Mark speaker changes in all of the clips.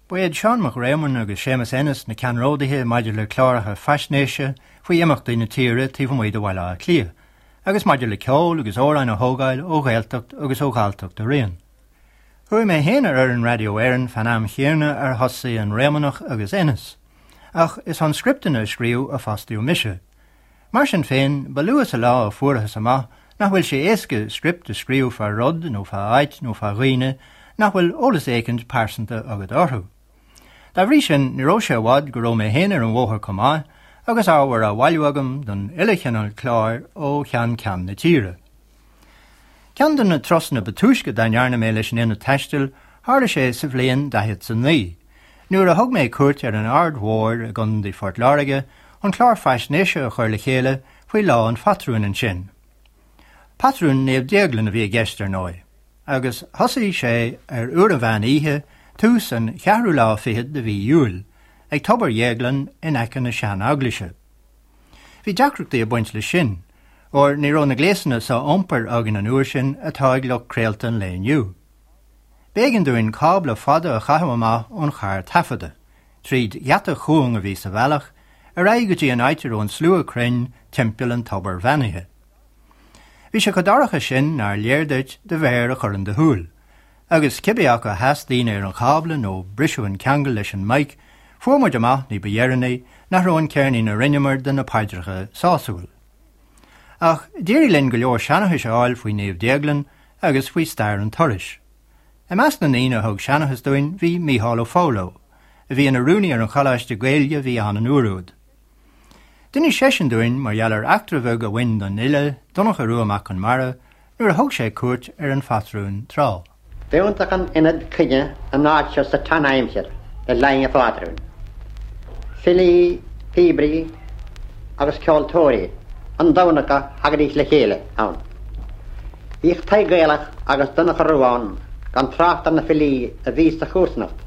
Speaker 1: Ba iad Seán Mac Réamoinn agus Séamus Ennis na ceannródaithe maidir le cláracha faisnéise faoi imeachtaí na tíre taobh amuigh de Bhaile Átha Cliath, agus maidir le ceol agus amhráin a thógáil ó Ghaeltacht agus ó Ghalltacht araon. Chuaigh mé féin ar fhoireann Radio Éireann fán am chéanna ar thosaigh an Réamonnach agus Ennis, ach is chun scripteanna a scríobh a fostaíodh mise. Mar sin féin, ba luath sa lá a fuarthas amach nach bhfuil sé éasca script a scríobh fá rud nó fá áit nó fá dhaoine nach bhfuil eolas éicint pearsanta agat orthu. Dá bhrí sin, ní raibh sé i bhfad go raibh mé féin ar an bhóthar chomh maith agus ábhar á bhailiú agam don uile chineál cláir ó cheann ceann na tíre. Ceann de na turasanna ba túisce dá ndearna mé leis an Ionad Taistil, tharla sé sa bhliain 49, nuair a thug mé cuairt ar an Aird Mhóir i gContae Phort Láirge chun clár faisnéise a chur le chéile faoi Lá an Phatrúin ansin. Patrún Naomh Déaglan a bhí i gceist, ar ndóigh, agus thosaigh sé ar uair an mheán oíche, tús an cheathrú lá fichead de mhí Iúil, ag Tobar Dhéagláin in aice na sean-eaglaise. Bhí deacrachtaí ag baint leis sin, óir ní raibh na gléasanna so-iompair againn an uair sin atá ag lucht craolta an lae inniu. B'éigean dúinn cábla fada a chaitheamh amach ón charr taifeadta, tríd gheata cúng a bhí sa bhealach, ar aghaidh go dtí an áit a raibh an slua cruinn timpeall an tobair bheannaithe. Bhí sé chomh dorcha sin nár léir duit do mhéar a chur in do shúil, agus cibé acu a sheas daoine ar an chábla nó briseadh an ceangal leis an mic, fuair muid amach ní ba dheireanaí nach raibh an ceirnín a rinneamar de na paidreacha sásúil. Ach d'éirigh linn go leor seanchais a fháil faoi Naomh Déaglan agus faoi stair an turais. I measc na ndaoine a thug seanchas dúinn bhí Mícheál Ó Foghlú, a bhí ina rúnaí ar an choláiste Gaeilge a bhí ann an uair úd. D'inis seisean dúinn mar gheall ar eachtra bheag a bhain don fhile, Donncha Rua Mac Conmara, nuair a thug sé cuairt ar an phatrún tráth.
Speaker 2: B'iontach an ionad cruinnithe an áit seo sa tsean-aimsir le linn an phátrúin. Filí, píobairí agus ceoltóirí an Domhnach a thagaidís le chéile ann. Bhíodh Tadhg Gaelach agus Donncha Rua ann gan trácht ar na filí a bhí sa chomharsanacht.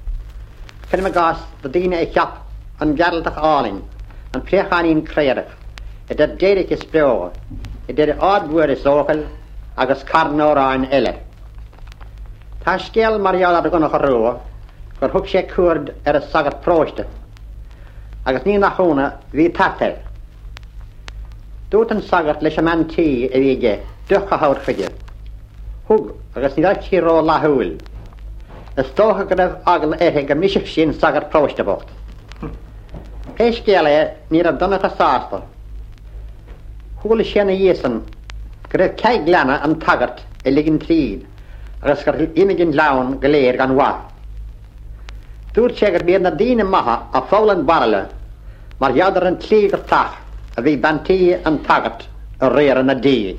Speaker 2: Cuirim i gcás na daoine a cheap An Gearaltach Álainn, An Préacháinín Craorach, Idir Déirc is Beo, Idir Aird Mhaoir is Eochaill agus carn amhráin eile. Tá scéal mar gheall ar Dhonncha Rua gur thug sé cuaird ar an sagart paróiste agus ní nach ionadh bhí tart air. Dúirt an sagart leis an mbean tí a bhí aige deoch a thabhairt chuige. Thug agus ní raibh sí ró-fhlaithiúil. Is dócha go raibh eagla uirthi go mbrisfeadh sí an sagart paróiste bocht. Pé scéal é ní raibh Donncha sásta. Chuala sé ina dhiaidh san go raibh cead gleanna an tsagairt a ligean tríd agus gur imigh an gleann go léir gan mhaith. Dúirt sé gurb iad na daoine maithe a pholl an bairille mar gheall ar an tslí gur teach a bhí bean tí an tsagairt ag riaradh na dí.